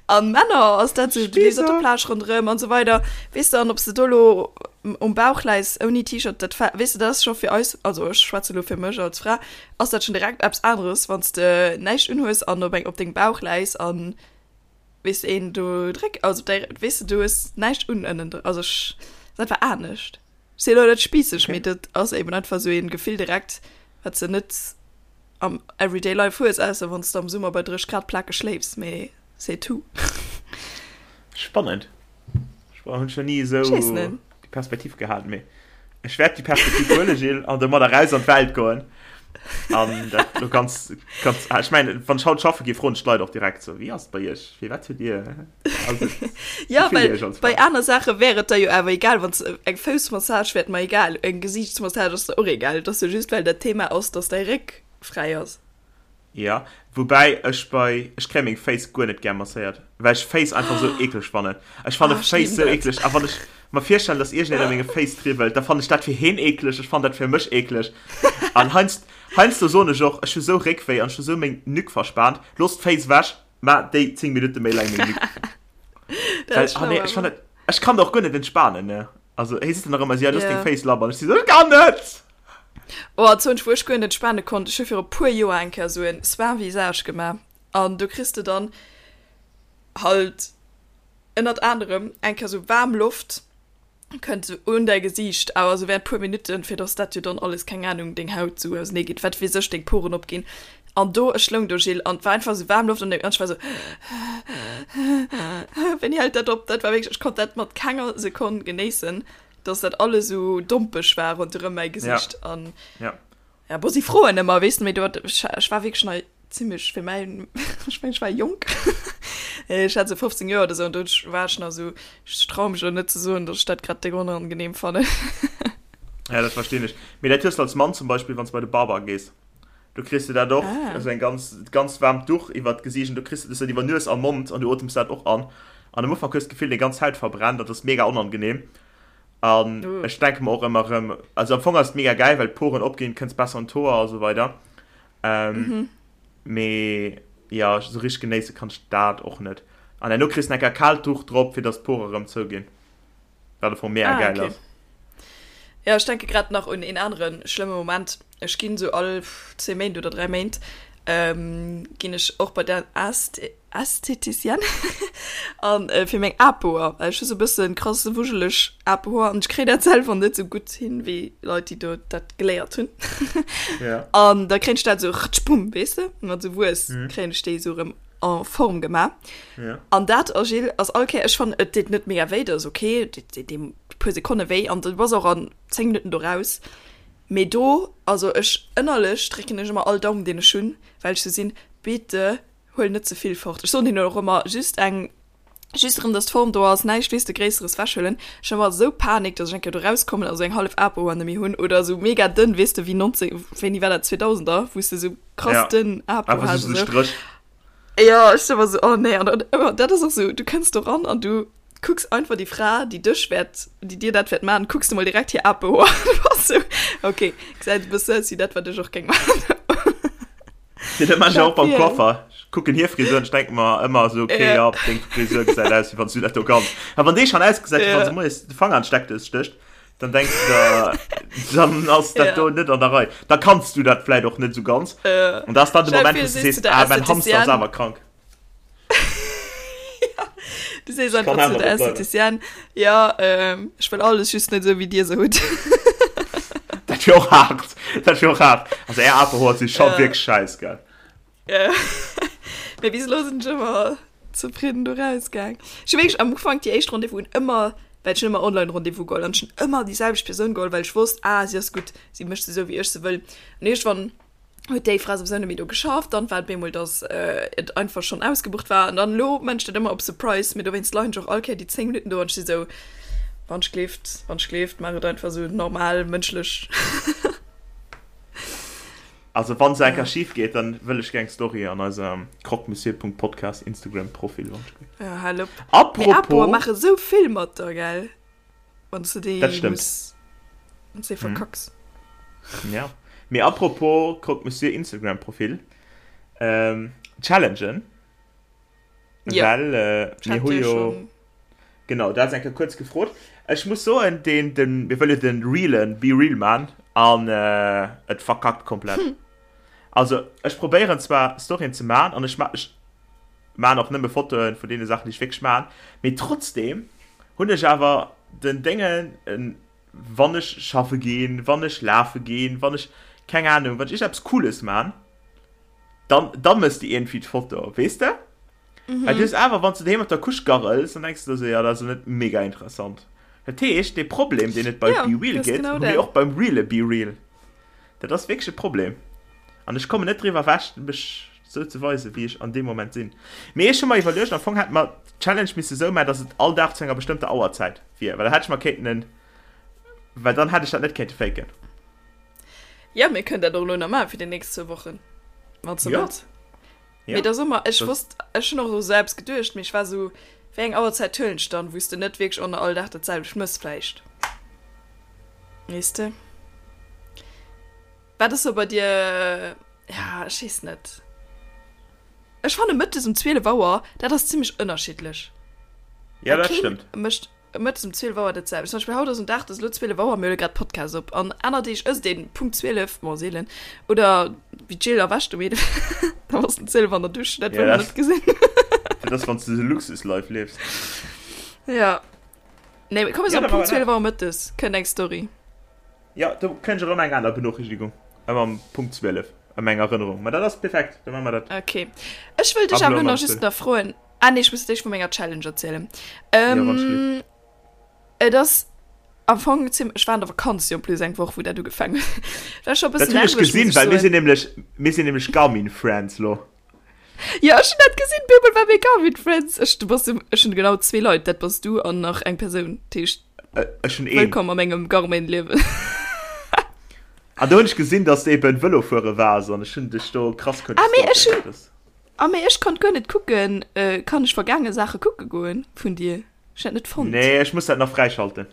An Männer ass dat sou, du leefs op der Spießer! Plage ronderëm an esou weider, weess de, an ob s de do elo um Bauch läis ouni T-Shirt, dat weess de, dat ass scho fir eis, also ech schwätze elo fir mech als Fra, ass dat schon direkt eppes aneres, wann s de näischt unhues an op eng op dengem Bauch läis an weess de een do dréck, also op däi, weess de, du hues näischt un ënnen, also ech, ass einfach anescht. Ech sinn elo net spießeg, Okay. mee dat ass eben einfach esou een Gefill direkt, wat s de net am everyday life hues, ausser wann s de am Summer bei 30 Grad plakeg schléifs, mee c'est tout. Spannend. Ech hunn schon ni esou Ech weess net. déi Perspektiv gehat, mee ech wäert déi Perspektiv huelen, Jill, an domadder raus an d'Welt goen. An dat lo ganz, ganz, ah, ech mengen, wann ech haut schaffe gi, froen ech d'Leit och direkt so, wéi ass et bei iech? Firwat hutt Dir, also, Ja, wéi fillt Dir well iech als bei Fra? aner Saache wär et da jo awer egal, wann s eng Foussmassage wär et mer egal, eng Gesiichtsmassage ass der och egal. Et ass jo just, well dat Thema ass, dass däi Réck fräi ass. Ja, woubäi ech bei, ech kréie meng Féiss guer net gär masséiert, well ech Féiss einfach sou eekleg fannen. Ech fanne Ah, ech Féiss liben sou dat. eekleg a wann ech mer virstellen, dass iergendeen a menge Féiss triwwelt, da fannen ech dat fir heen eekleg, ech fannen dat fir mech eekleg. An heiansd, heiansdo soen ech och, ech hu sou Réckwéi an ech hu sou meng Nuque verspaant, looss d'Féiss ewech, ma déi 10 Minutte méi laang meng Nuque. Dat Well, ass ah schlau nee, ech awer. fannen dat, ech kann da och guer net entspanen, ne. Also hee seet dann nach ëmmer sou, ja, looss deng Ja. Féiss labber an ech si sou, ech kann net! Oh, an zwou, wou ech guer net entspanen konnt, ech hu viru puer Joer eng Kéier sou en Soin visage gemaach an do kriss de dann halt ënnert anerem eng Kéier sou waarm Loft kënnt sou un däi Gesiicht, awer sou während puer Minutten, fir dass dat jo dann alles, keng Ahnung, deng Haut sou ausenee geet, wat weess ech, deng Poren opginn. An do, ech loung do, Gilles, an et war einfach sou waarm Loft an ech war sou, Wéini hält dat op? Dat war wierklech, ech konnt dat mat kenger Sekonn genéissen. dass dat alles sou dompeg war ronderëm mäi Gesicht ja. an ja. ja bo si froen ëmmer weess de méi do ech, ech war wierklech nei zimmlech fir mäin ech meng ech war jonk ech hat sou 15 Joer oder sou an do war ech nach sou ech traue mech elo net ze soen dass ech dat grad déck onangenehm fannen. Ja dat verstinn ech mee dat hues de als Mann zum Beispill wann s de bei de Barber gees do kriss de dat och ah. also eng ganz ganz waarmt Duch iwwert d'Gesiicht an do kriss de dat iwwer Nues a Mond an du otems dat och an an am Ufank hues de d'Gefill deng ganz Haut verbrennt an dat ass mega onangenehm an uh. ech denke mer och ëmmer erëm also am Fong ass et mega gäil well d'Poren opginn kënns besser an d'Hoer a sou weider ähm, mhm. mee ja sou richteg genéisse kann ech dat och net an herno kriss de eng Kéier kaalt Duch drop fir dass d'Pore erëm zouginn. Wat am Fong mega ah, geil okay. ass. Ja, ech denke grad nach un een anere schlëmme Moment. Ech ginn sou all 10 Méint oder 3 Méint ähm, ginn ech och bei der Äst Ästheticienne an äh, fir meng Apoer. Well ech hu sou e bëssen krass wujeleg Apohoer an ech kréien dat selwer net sou gutt hin wéi Leit, déi do dat geléiert hunn. Ja. An da kréien ech dat sou rtschbumm, weess de, mat sou Wuess Mhm. kréien ech déi sou erëm en Form gemaach. Ja. An dat, oh Gilles, ass all Kéier, ech fannen, et deet net mega wéi, dat ass ok, dee, dee, dee. puer Sekonne wéi an du bass och an 10 Minutten do raus. Mee do, also ech ënnerlech drécken ech ëmmer all Daum deen ech hunn, well ech sou sinn, bitte huel net ze vill fort. Ech soen hinnen och ëmmer just eng, just erëm dass d'Form do ass, näischt weess de Gréisseres wechhuelen. Ech hunn ëmmer esou Panik, dass ech eng Kéier do rauskommen a sou eng hallef Apo an méi hunn oder sou mega dënn, weess de wéi 19, wéini war dat, 2000er, wou s de sou krass dënn Apo has. Einfach sou e Stréch. Jo, ech sinn ëmmer sou, oh nee, an dann ëmmer, dat ass och sou, du kënns do ran an du kucks einfach déi Fra, déi dech wäert, déi dir dat wäert maachen, kucks du mol direkt hir Apehoer an du bass sou, ok, gesäit e bësse aus wéi dat, wat ech och géing maachen. Jo, dat maachen ech och beim Coiffer. Ech kucken hir Frisur an ech denke mer ëmmer sou, ok, jo, deng Frisur gesäit aus, wéi wann s du dat do kanns. A wann déi schonn ausgesäit, wéi wann se moies de Fanger an d'Steckdous stécht, dann denks du der, dann ass dat do net an der Rei. Da kanns du dat vläit och net sou ganz. An dat ass dann de Moment, wou s du sees, ah, mäin Hamster ass awer krank. Ja, du sees einfach zu der Estheticienne, ja, ähm, ech wëll alles just net esou wéi dir se hutt. Dat wier och haart. Dat wier och haart. Also är Aperhoer si scho wierklech schäiss, gell? Ja. Mee bis elo sinn ech ëmmer zefridden do rausgaang. Ech hu wierklech am Ufank déi éischt Rendez-vousen ëmmer, well ech hunn ëmmer Online-Rendez-vous geholl an ech hunn ëmmer déi selwecht Persoun geholl, well ech wosst, ah, si ass gutt, si mécht se esou wéi ech se wëll. An iergendwann huet déi Fra souwisou net méi do geschafft, dann war et bemol, dass et einfach schonn ausgebucht war an dann elo man ech dat ëmmer op Surprise, mee dowéinst leien ech och all Kéier déi 10 Minutten do an ech si sou, wann ech gleeft, wann ech gleeft, maach et einfach sou normal mënschlech. Also wann se eng Kéier schif geet, dann wëll ech gär eng Story an eisem croquemessieur.podcast Instagram Profil, wann ech gleeft. Ja, hal op. Apropos. Mee Apoer maache sou vill mat der, gell? Wann du déi Dat stëmmt. muss, wann du déi verkacks. Ja. Mee apropos Croque Monsieur Instagram Profil, ähm, Challengen. Ja. Well äh, Ich mir hat hu dir jo schon. genau, dat ass eng Kéier kuerz gefrot. Ech muss soen, den, den, mir wëlle den realen Be Real man an äh, et verkackt komplett. Also ech probéieren zwar Storyen ze man an ech ma ech Maan och nëmme Fotoen vun deene Saachen déi ech wierklech maan, mee trotzdem hunn ech awer den Déngen wann ech schaffe ginn, wann ech lafe ginn, wann ech keng Ahnung, wann ech iergendeppes Cooles maan, dann da mëss de iergendwéi d'Foto, weess de? Well du hues awer, wann s de doheem op der Couche garrels, dann denks de der sou, jo dat ass elo net mega interessant. Dat heescht, dee Problem deen et bei Jo, BeReal dat ass gëtt, genau hu mir dat. och beim reale BeReal. Dat ass wierklech e Problem. An ech kommen net driwwer ewech, mech sou ze weisen, wéi ech an deem Moment sinn. Mee ech hu mer iwwerluecht, am Fong hätte mer d'Challenge misse sou maachen, dass et all Dag zu enger bestëmmter Auerzäit wier, well da hätt ech mer kéinten en, well dann hätt ech dat net kéinte faken. Jo, mir kënnen dat och elo nach maachen fir déi nächst zwou Wochen, wann s de Jo. wëlls. Ja. Mee da soe mer, ech Das- wosst, ech hunn och u sou eppes geduecht, mee ech war sou, wéi eng Auerzäit huelen ech dann, wou s de net wierklech och nach all Dag dat selwecht mëss vläicht. Weess de? Wat ass sou bei dir, ja, ech weess net. Ech fanne mëttes um 12 Auer, dat ass zimmlech ënnerschiddlech. Ja, Well dat keen stëmmt. mécht Mëttes um 12 Auer dat selwecht. Zum Beispill haut ass en Dag, et ass elo 12 Auer, mir huele grad Podcast op. An aner Deeg ësst een Punkt 12, bon seelen, oder wéi d'Jill erwächt um 11, da bass de 12 an der Dusch, dat Ja, wëll mer dat- net gesinn. Dat ass, wann s de de Luxus-Life liefs. Ja. Nee, mee komm, mir Ja, soen da Punkt maache mer 12 Auer mëttes kënnt eng Story. Ja, do kréien ech erëm eng aner Benoochrichtigung, ëmmer um Punkt 12, ëm eng Erënnerung. Mä dat ass perfekt, da maache mer dat. Okay. Ech wëll dech Ab awer elo elo ëm nach just 12. nach froen, Ah nee, ech muss d'éischt vu menger Challenge erzielen. Ja, wann ech Ähm, et ass am Fong zim ech war an der Vakanz jo en plus eng Woch, wou dat ugefaangen huet. War scho e Dat bëssen hunn ech nerveg, muss gesinn, ech well mir soen. sinn nämlech, mir sinn nämlech Garmin Friends lo. Ja, ech hunn dat gesinn, bemol war mir Garmin Friends. Ech, du bass, ech hunn genau zwee Leit, dat bass du an nach eng Persoun. Dat heescht, Äh, Ech hunn een. wëllkomm a mengem Garmin-Liewen. An do hunn ech gesinn, dass de eben Vëlo fuere waars an ech hunn dech do krass kënne Ah, mee ech stalken. hunn, Das. Ah mee ech konnt guer net kucken, kann ech vergaange Saache kucke goen vun dir? Ech hat net fonnt. Nee, ech muss dat nach fräischalten.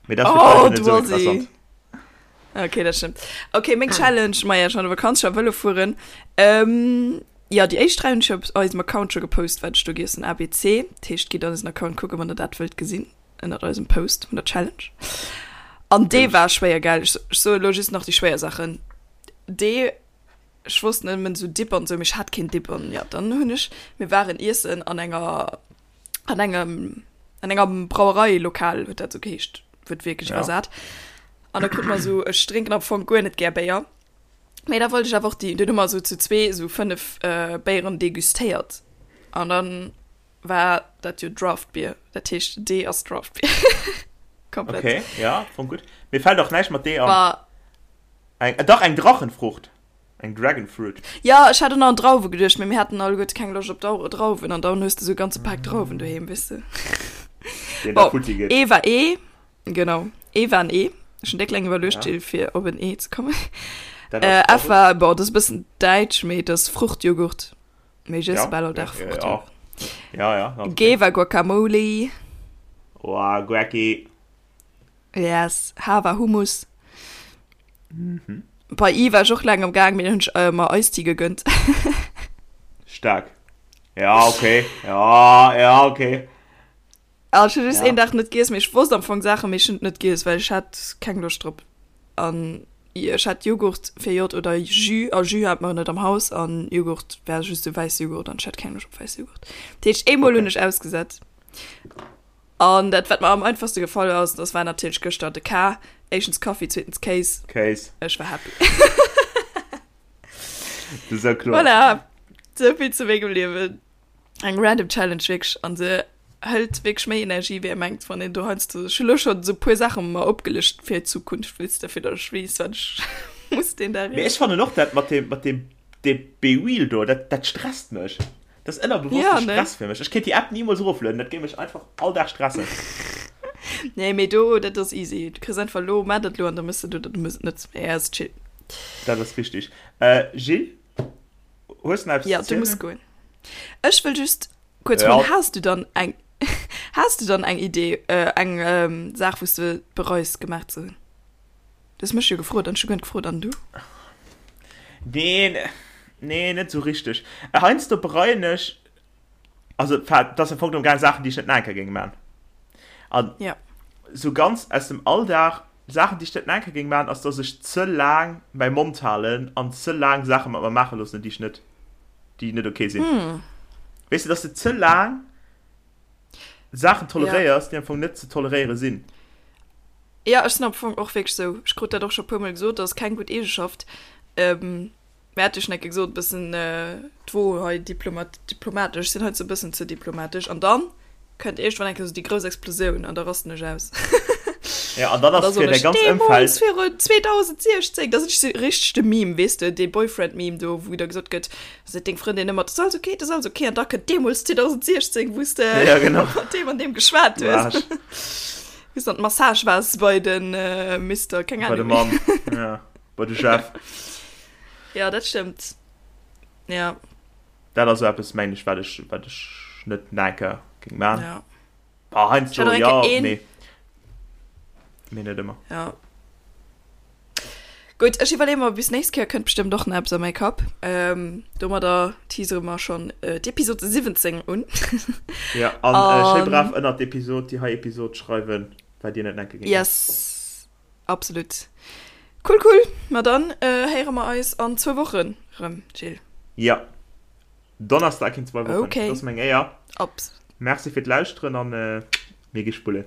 Mee dat Oh, fir d'Leit net du esou Assi. interessant. Okay, dat stëmmt. Okay, meng Challenge, maja, ech war an der Vakanz, ech war Vëlo fueren. Ähm, jo, déi éischt 3 hunn ech op eisem Account scho gepost, wat ech do giessen, ABC. Dat heescht, gitt an eisen Account kucken, wann der dat wëllt gesinn, ënnert eisem Post vun der Challenge. An dee war schwéier, gell? Ech, ech soe lo just nach déi schwéier Saachen. Dee Ech wosst nëmmen sou Dip an sou, mee ech hat keen Dip an ja, dann hunn ech, mir waren iessen an enger, an engem, an enger Brauereilokal huet dat sou geheescht, wuertwierklech Ja. iwwersat. An da krut mer sou, ech drénken am Fong guer net gär Béier, mee da wollt ech awer och déi, dunn hu mer sou zu zwee sou 5 Béieren degustéiert an dann war dat jo Draft Beer, dat heescht dee ass Draft Beer. Komplett. Okay, ja, fong gutt. Mir fällt och näischt mat D an. Bah. Eng, äh, dach, eng Drachenfrucht. Eng Dragon Fruit. Ja, ech hat och nach an Drauwe geduecht, mee mir haten alleguerte keng Loscht op Dau Drauwen an dann hues de sou e ganze Pak Drauwen doheem, weess de. Deen da Bon, futti geet. E war E, genau, E war en E. Ech hunn déck laang iwwerluecht, Ja. Jill, fir op en E ze kommen. Dat Äh, ass F war, bon, dat ass e bëssen däitsch, mee dat ass Fruchtjoghurt. Mee ech iesse Ja, bal all ja, Dag ja, ja. Fruchtjoghurt. Ja, ja, okay. G war Guacamole. Oh, Guacki. Yes, H war Hummus. Mhm. Bei I war ech och laang am Gaang, mee dann hunn ech äh, mer Eistea gegönnt. Stark. Ja, okay. Ja, ja, okay. Ah, ech hunn just Ja. een Dag net giess, mee ech wosst am Fong Saachen, mee ech hunn et net giess, well ech hat keng Loscht drop. An ech hat Joghurt fir J oder Jus, a Jus hat mer net am Haus, an Joghurt war just esou wäisse Joghurt, an ech hat keng Loscht op wäisse Joghurt. Dat heescht, eemol Okay. hunn ech ausgesat. An dat, wat mer am einfachste gefall ass, das war natierlech gëschter de K. Éischtens Kaffi, zweetens Kéis. Kéis. Ech war happy. Das ist ja kloer. Voilà. Sou vill zu mengem Liewen. Eng random Challenge wierklech. An se hëlt wierklech méi Energie, wéi ee mengt, wann een do heiansdo. Ech hu lo schonn esou puer Saache mer opgelëscht fir d'Zukunft, weess de, fir datt ech weess, wat ech muss deen Dag Mee ech iessen. fannen och dat mat deem, mat deem, deem BeReal do, dat, dat stresst mech. Dat ass ënnerbewosste Ja, ne? Stress fir mech. Ech kéint déi App nimools eroflueden, dat géing mech einfach all Dag stressen. Nee, mee do, dat ass easy. Du kriss einfach lo, maach dat lo an da mëss de dat oder du mëss et net. Mee ass chill. Dat ass richtig. Äh, Jill, hues de nach eppes Ja, ze du muss zielen? goen. Ech wëll just kuerz Ja. froen, has du dann eng, has du dann eng Idee, äh, eng ähm, Saach, wou s de bereus gemaach ze hunn? Du hues mech jo gefrot an ech hu guer net gefrot. An du? Neen, nee, net sou richteg. Heiansdo bereien ech, also dat ass am Fong genommen gaang Saachen, déi ech net nach eng Kéier géing man. An Ja. sou ganz aus dem Alldag, Saachen, déi ech net nach eng Kéier géing man, ass, dass ech ze laang mäi Mond halen an ze laang Saache mat mer maache loossen, déi ech net, déi net okay sinn. Weess de, dass de ze laang Saachen toleréiers, déi am Fong net ze toleréiere sinn. Jo, ech sinn am Fong och wierklech sou. Ech krut dat och scho puermol gesot, dat ass keng gutt Eegeschaft. Mä hat jo schonn eng Kéier gesot, e bëssen d'Wo hei diplomat, diplomatesch, ech sinn heiansdo e bëssen ze diplomatesch. An dann kënnt iergendwann eng Kéier sou déi grouss Explosioun an da rasten ech aus. Ja, an dann An da ass fir soen däi ech, ganz deemools Ëmfeld. virun 2016, da sinn ech sou richteg de Meme, weess de, dee Boyfriend-Meme do, wou da gesot gëtt, Seet deng Frëndin ëmmer, 't ass alles ok, 't ass alles ok, an da kënnt deemools 2016, wou s de Ja, genau. mat deem an deem geschwat Du hues. Arsch. Wou s de an d'Massage waars bei den Mister, keng Bei de Ahnung. Mann, ja. Bei de Jeff. Ja, dat stëmmt. Ja. Dat ass esou eppes, mengen ech, wat ech, wat ech net nach eng Kéier géing maachen. Ja. Ah, heiansdo, Ech hat och eng ja, Kéier een. mee, mee net ëmmer. Ja. Gutt, ech iwwerleeë mer bis nächst Kéier, kënnt bestëmmt och nach eppes a mäi Kapp. Ähm, domadder teasere mer schonn äh, d'Episode 17 un. Ja, an äh, schéi An brav ënnert d'Episod, déi hei Episod schreiwen, wat dir net enke géingt. yes, absolut. Cool, cool. Ma dann äh, héiere mer eis an zwou Wochen rëm, Jill. Ja, Donnerstag in zwei Wochen. Okay. Dat ass meng Éier. Absolut. Merci fir d'Lauschteren an äh, mir gi spullen.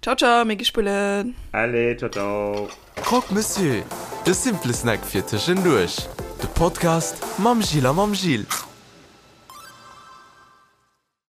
Ciao, ciao, mir gi spullen. Allez, ciao, ciao. Croque Monsieur, de simple Snack fir tëschenduerch. De Podcast mam Gilles a mam Gilles.